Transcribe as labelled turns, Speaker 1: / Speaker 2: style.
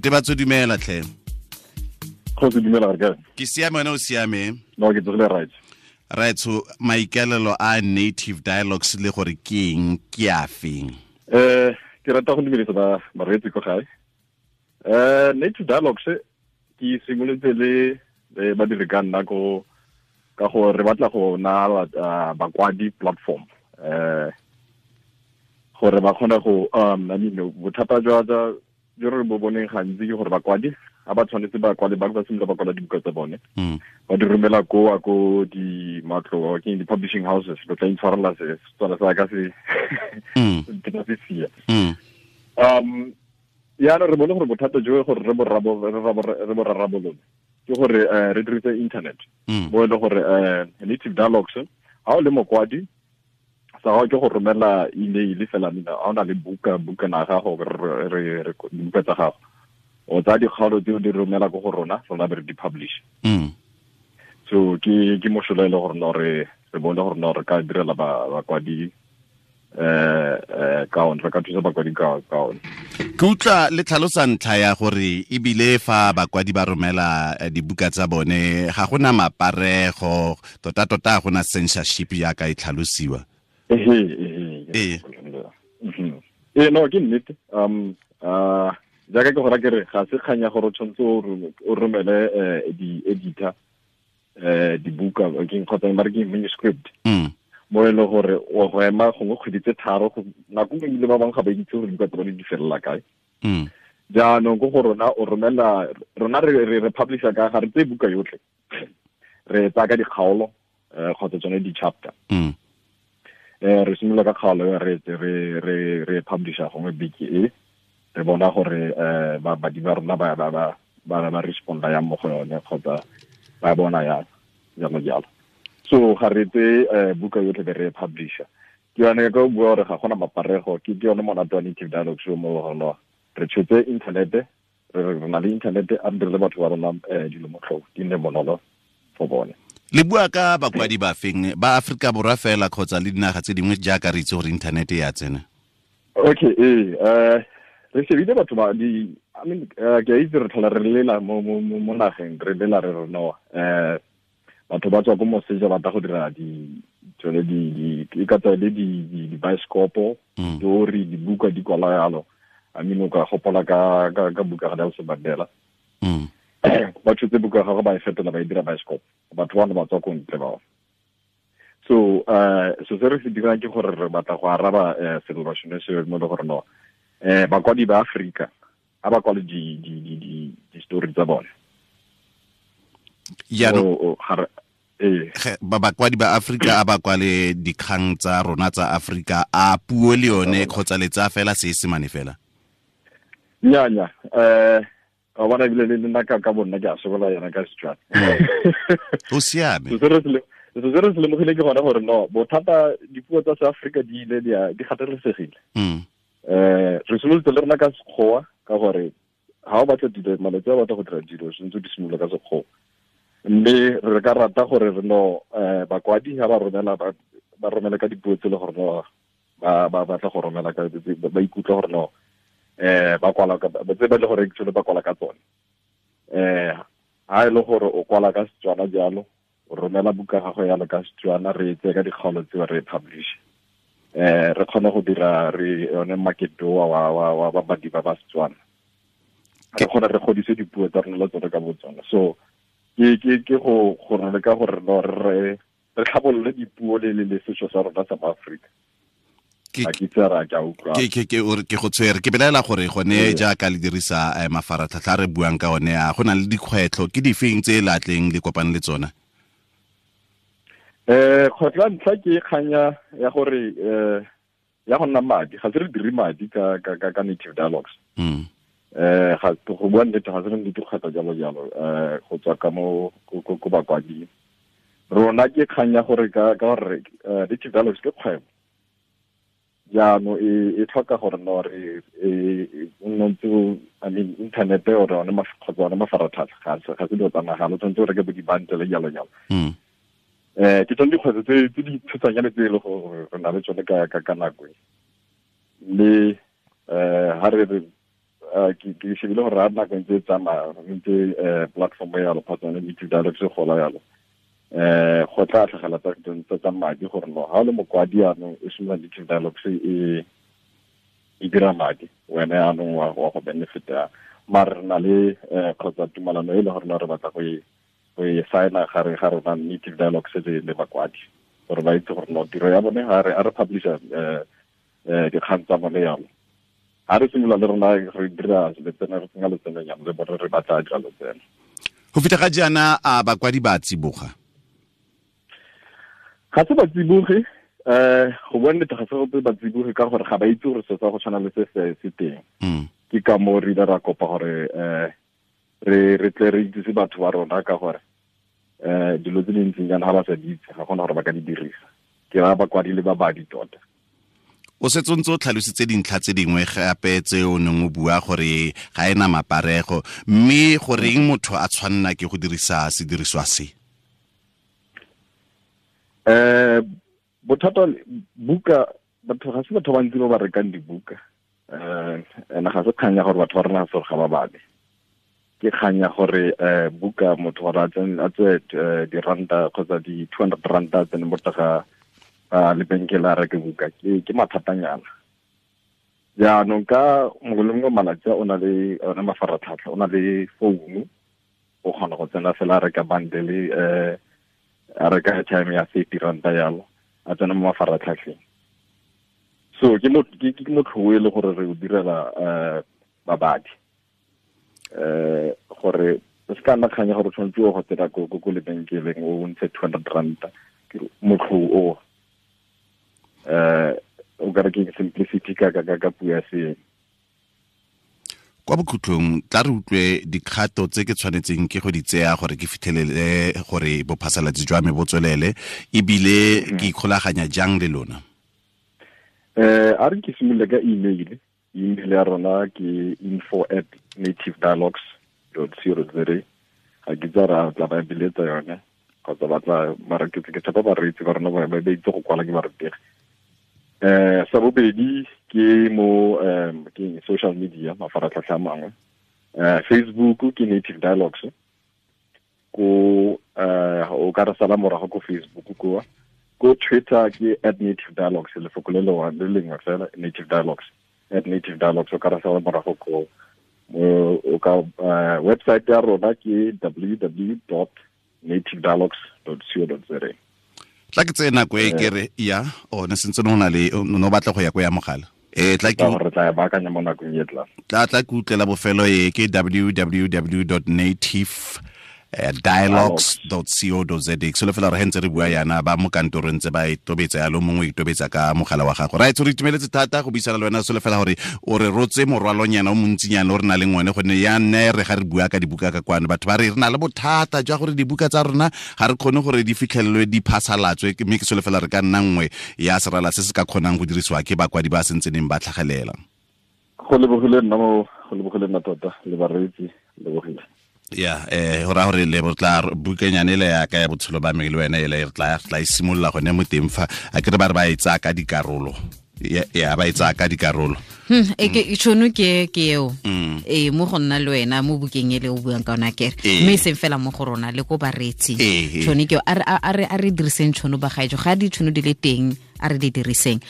Speaker 1: Tebatso, dumela tlhe.
Speaker 2: Kgosi, dumela, re kae?
Speaker 1: Ke siame, wena o siame?
Speaker 2: No, ke tsogile right.
Speaker 1: Right, so maikaelelo a Native Dialogues le gore ke eng, ke a feng?
Speaker 2: Ke rata go dumedisa ba bareetsi ko gae. Native Dialogues ke simolotse le badiri ka nna ko ka gore re batla go na bakwadi platform, gore ba kgone go I mean, bothata jwa jo re bo boneng gantsi ke gore bakwadi ga ba tshwanetse ba kwale, ba simolola ba kwala dibuka tsa bone, ba di romela ko ko di matlo, ke di publishing houses. Lo tla intshwarela, se Setswana sa ka se ke tla se sia. Yaanong re bone gore bothata jo gore re bo rarabolole ke gore re dirise internet, bo e le gore Native Dialogues, ga o le mokwadi, sa gago ke go romela email fela. Mina ga o na le buka, bukana gago, re dibuka tsa gago, o tsaya dikgaolo tseo, di romela ko go rona, rona be re di publish. So ke mosola e le gore no re bone gore no re ka direla bakwadi ka one, re ka thusa bakwadi ka one.
Speaker 1: Ke utlwa le tlhalosa ntlha ya gore ebile fa bakwadi ba romela dibuka tsa bone, ga gona maparego, tota-tota ga gona censorship jaaka e tlhalosiwa.
Speaker 2: Ehe. Ee, no, ke nnete. Jaaka ke gora ke re, ga se kgang ya gore o tshwanetse o romele di-editor dibuka ke kgotsa ba re ke manuscript, mo e le gore o go ema gongwe kgwedi tse 3, nako nngwe ebile ba bangwe ga ba itse gore dibuka tsa bone di felela kae. Jaanong ko go rona, o romela rona, re publisha ka ga re tseye buka yotlhe, re tsaya ka dikgaolo kgotsa tsone di-chapter. Re simolola ka kgaolo, re publisha gongwe beke e, re bona gore babadi ba rona ba responda yang mo go yone kgotsa ba bona yang, jalo jalo. So ga re tse buka yotlhe be re publisha. Ke yone ka bua gore ga gona maparego. Ke yone monate wa Native Dialogue show mo gona re tshotse internet, re na le internet, a re dirile batho ba rona dilo motlhofo, di nne bonolo for bone.
Speaker 1: Le bua ka bakwadi ba feng? Ba Aforika Borwa fela kgotsa le dinaga tse dingwe, jaaka re itse gore internet e ya tsena?
Speaker 2: Okay, ee, re shebile batho ba di, I mean, ke a itse re tlhola re lela mo nageng, re lela re re no batho ba tswa ko moseja ba tla go dira di tsone di e ka tswa le di bioscopo, story, dibuka di kwala yalo. I mean, o ka gopola ka buka ga Nelson Mandela, ba tshotse buka gagwe, ba e fetola, ba e dira bioscope, batho bano ba tswa ko ntle bao. So so se re se dirang ke gore re batla go araba selelo sone se mo le gore no bakwadi ba Afrika a ba kwale di story tsa bone.
Speaker 1: Jaanong
Speaker 2: Ee.
Speaker 1: Ba bakwadi ba Afrika a ba kwale dikgang tsa rona tsa Afrika, a puo le yone, kgotsa le tsaya fela Seesemane fela?
Speaker 2: Nya, wa bona, ebile le nna ka bonna ke a sokola yona ka Setswana.
Speaker 1: O siame.
Speaker 2: So se re se lemogile ke gone gore no bothata dipuo tsa Seafrika di ile di gatelesegile. Re simolotse le rona ka Sekgowa ka gore ga o batla dilo malatsi a batla go dira dilo, sentse di simolola ka Sekgowa, mme re ka rata gore re no bakwadi ga ba romela, ba romela ka dipuo tse le gore no ba batla go romela ka, ba ikutlwa gore no ba kwala ka tse ba le gore actually ba kwala ka tsone. Ha e le gore o kwala ka Setswana jalo, o romela buka gago yalo ka Setswana, re e tseye ka dikgaolo tseo, re e publish, re kgone go dira re yone market wa babadi ba Setswana, re kgone re godise dipuo tsa rona le tsone ka botsone. So ke go re leka gore no re tlhabolole dipuo le setso sa rona sa Maaforika. Ga ke itse ra ke a utlwa.
Speaker 1: Ke o re ke go tshwere, ke belaela gore gone jaaka le dirisa mafaratlhatlha a re buang ka one, a go na le dikgwetlho? Ke difeng tse latleng le kopane le tsona?
Speaker 2: Kgwetlho ya ntlha ke kganya ya gore ya go nna madi. Ga se re dire madi ka Native Dialogues. Ga go bua nnete, ga se re nnete kgwetlho jalo jalo go tswa ka mo ko bakwading rona. Ke kgang ya gore ka gore Native Dialogues ke kgwebo, jaanong e tlhoka gore no re e nne ntse, I mean, internet or one kgotsa one mafaratlhatlha ga se dilo tsa mahala, o tshwanetse o reke bo di-bundle, jalo jalo. Ke tsone dikgwetlho tse di tshosanyane tse e le gore re na le tsone ka nako e, mme ha re re ke shebile gore a nako ntse e tsamaya ntse platform ya yalo kgotsa yone Native Dialogues e gola yalo, go tla tlhagela tsa madi gore no ha o le mokwadi yaanong e simolola Native Dialogues e dira madi, wena yaanong wa go benefita. Mare re na le kgotsa tumalano e le gore re batla go e signa gare ga rona Native Dialogues le bakwadi, gore ba itse gore no tiro ya bone ga re publisha dikgang tsa bone yalo. Ha re simolola le rona re dira letseno, re tsenya letseno nyana le bone re batla dira letseno.
Speaker 1: Go fitlha ga jaana a bakwadi ba tsiboga?
Speaker 2: Ga se ba tsiboge, go bua nnete ga se gope ba tsiboge ka gore ga ba itse gore se sa go tshwana le se se teng. Ke ka moo re ile ra kopa gore re tle re itsise batho ba rona ka gore dilo tse di ntseng jaana ga ba sa di itse ga gona gore ba ka di dirisa. Ke raya bakwadi le babadi tota.
Speaker 1: O setse o ntse o tlhalositse dintlha tse dingwe gape tse o neng o bua gore ga ena maparego, mme goreng motho a tshwanna ke go dirisa sediriswa se?
Speaker 2: Bothata buka, batho ga se batho ba ntsi ba ba rekang dibuka. Ene ga se kgang ya gore batho ba rena ga se gore ga ba bale. Ke kgang ya gore buka motho gore a tswe diranta kgotsa di 200 ranta a tsene mo teng ga lebenkele a reke buka, ke mathatanyana. Jaanong ka mongwe le mongwe malatsi a o na le one mafaratlhatlha, o na le founu, o kgona go tsena fela a reka bundle, a reka airtime ya 30 ranta yalo, a tsena mo mafaratlhatlheng. So ke motlho e le gore re o direla babadi, gore se ka nna kgang ya gore o tshwanetse o go tsena ko lebenkeleng o ntshe 200 ranta. Ke motlho o o ka re ke simplicity ka puo ya seeng.
Speaker 1: Kwa bokhutlong tla re utlwe dikgato tse ke tshwanetseng ke go di tseya gore ke fitlhelele gore bophasalatsi jwa me bo tswelele, ebile ke ikgolaganya jang le lona?
Speaker 2: A re ke simolole ka email. Email ya rona ke info@nativedialogues.co.za. Ga ke tsa ra tla ba biletsa yone kgotsa ba tla mara ke tshepa bareetsi ba rona ba itse go kwala ke barutegi. Sa bobedi ke mo ke social media, mafaratlhatlha a mangwe. Facebook ke Native Dialogues. Ko o ka re sala morago ko Facebook ko. Ko Twitter ke @NativeDialogues, lefoko le le lengwe fela, Native Dialogues, @NativeDialogues, o ka re sala morago ko. O ka website ya rona ke www.nativedialogues.co.za.
Speaker 1: Tla ke tseye nako e ke re ya o ne sentse no na le no batla go ya ko ya mogala. Tla ke
Speaker 2: re tla e baakanya mo nakong e tlang.
Speaker 1: Tla ke utlela bofelo e ke www.nativedialogues.co.za. Ke solofela gore he ntse re bua yana ba mo kantorong tse ba e tobetsa yalo, mongwe e tobetsa ka mogala wa gago. Right, re itumeletse thata go buisana le wena, solofela gore o re rotse morwalonyana o montsinyana o re na leng one, gonne ya nne re ga re bua ka dibuka ka kwano batho ba re re na le bothata jwa gore dibuka tsa rona ga re kgone gore di fitlhelelwe di phasalatswe, mme ke solofela re ka nna nngwe ya serala se se ka kgonang go dirisiwa ke bakwadi ba sentseneng ba tlhagelela.
Speaker 2: Go lebogile nna mo, go lebogile nna tota le bareetsi, lebogile.
Speaker 1: Ya, go raya gore le tla bukanyane le ya ka ya botshelo ba me le wena ele re tla e simolola gone mo teng fa a ke re ba re ba e tsaya ka dikarolo. Ya ba e tsaya ka dikarolo.
Speaker 3: E tšhono ke eo. Mo go nna le wena mo bukeng ele o buang ka yona kere. Mme e seng fela mo go rona le ko bareetsing. Tšhono ke eo, a re diriseng tšhono ba gaetsho, ga ditšhono di le teng a re di diriseng.